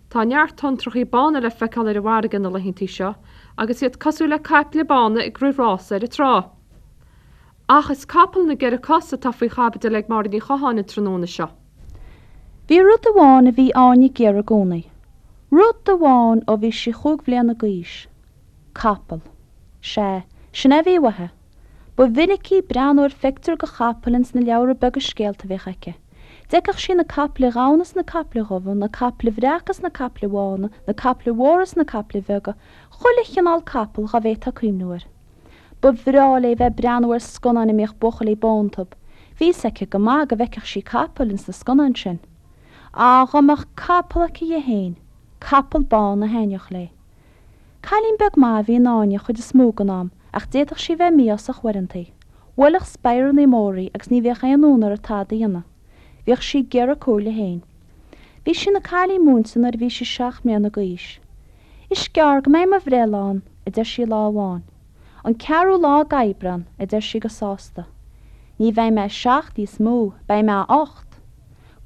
Tá neart tonntrachaí bána le feiceáil ar an bhfarraige na laethantaí seo agus iad cosúil le caiple bána ag rith rása ar an trá. Ach is capall na gceithre cos atá faoi chaibidil ag Máire Ní Chatháin an tráthnóna seo. Bhí rud amháin a bhí Áine ag iarraidh i gcónaí. Rud amháin ó bhí sí chúig bhliana d'aois. Capall. Sea, sin é a bhí uaithi. Ba mhinic í ag breathnú ar phictiúr de chapall ins na leabhra beaga scéalta a bhíodh aici. D'fheicfeadh sí na caiple dhonna is na caiple dhubha, na caiple bhreaca is na caiple bhána, na caiple mhóra is na caiple bheaga, chuile chineál capall dhá bhféadfá cuimhniú air. Ba bhreá léi bheith ag breathnú ar scannáin a mbíodh buachaillí bó iontu. Bhí fhios aici go maith go bhfeicfeadh sí capaill ins na scannáin sin. Á, dhá mbeadh capall aici dhi fhéin! Capall bán a thaitneodh léi. Cailín beag maith a bhí in Áine an chuid is mó den am ach d'fhéadfadh sí bheith mí-ásach uaireantaí. Bhuailfeadh speireannaí móra í agus ní bhíodh aon fhonn uirthi tada a dhéanamh. Bhíodh sí ag iarraidh comhairle féin. Bhí sí ina cailín múinte nuair a bhí sí seacht mbliana d'aois. Is gearr go mbeidh mo bhreithlá ann, a deir sí lá amháin. An ceathrú lá d'Aibreán, a deir sí go sásta. Ní bheidh mé seacht níos mó, beidh mé ocht.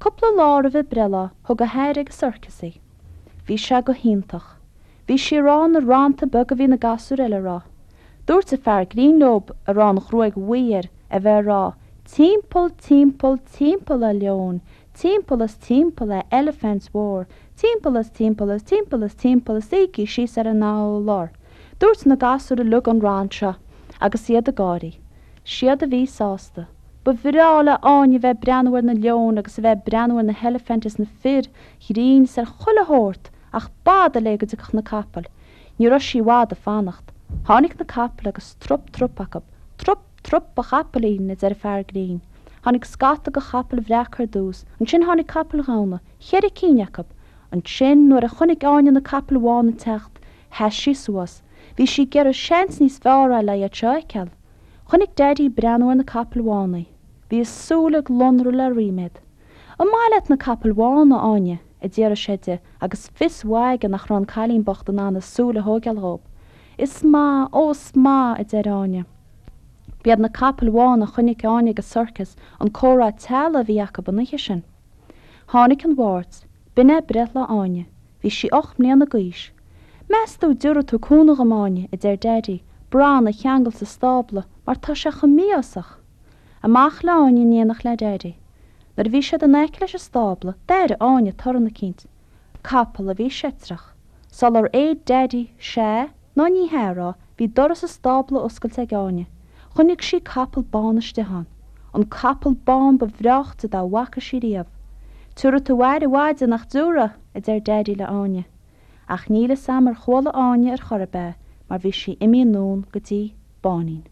Cúpla lá roimh a breithlá, thug a hathair ag an sorcas í. Bhí sé go hiontach. Bhí sí ag rá na rannta beaga a bhí na gasúir eile a rá. Dúirt an fear grinn leob, a raibh an ghruaig bhuí air, a bheith ag rá, Timpeall, timpeall, timpeall a leoin, timpeall is timpeall a eilifint mhór, timpeall is timpeall is timpeall is timpeall is suígí síos ar an urlár. Dúirt na gasúir uilig an rann seo agus iad ag gáirí. Siad a bhí sásta. Ba bhreá le Áine bheith ag breathnú ar na leoin agus a bheith ag breathnú ar na heilifint is na fir ghrinn is ar chuile shórt ach b'fhada léi go dtiocfadh na capaill. Ní raibh sí i bhfad ag fanacht. Tháinig na capaill agus trup trup acu. Trup trup a chapaillín, a deir an fear grinn. Tháinig scata de chapaill bhreaca ar dtús, ansin tháinig capaill dhonna, cheithre cinn acu. Ansin, nuair a chonaic Áine na capaill bhána ag teacht, sheas sí suas. Bhí sí ag iarraidh seans níos fearr a fháil le iad seo a fheiceáil. Chonaic Daidí ag breathnú ar na capaill bhána í. Bhí a súile ag lonradh le ríméad. An maith leat na capaill bhána, a Áine? a d'fhiafraigh sé di agus fios mhaith aige nach raibh an cailín bocht in ann a súile a thóigeáil dhób. Is maith, ó is maith, a deir Áine. B'iad na capaill bhána a chonaic Áine ag an sorcas an comhrá teaghlaigh a bhí acu an oíche sin. Tháinig an Mháirt. B'in é breithlá Áine. Bhí sí 8 mbliana d'aois. Meas tú an dtiúrfaidh tú cúnamh dhom, Áine, a deir Daidí, Bran a cheangal sa stábla mar tá sé chomh mí-ásach. Amach le Áine in éineacht le Daidí. Nuair a bhí siad in aice leis an stábla, d'airigh Áine torann eicínt. Capall a bhí seitreach. Sular fhéad Daidí 'sea' ná 'ní hea' a rá, bhí doras an stábla oscailte ag Áine. Chonaic sí capall bán istigh ann. An capall bán ba bhreáichte dá bhfaca sí riamh. Tiúrfaidh tú aire mhaith de, nach dtiúrfaidh? a deir Daidí le Áine. Ach níl fhios a'm ar chuala Áine ar chor ar bith é mar bhí sí imithe anonn go dtí Báinín.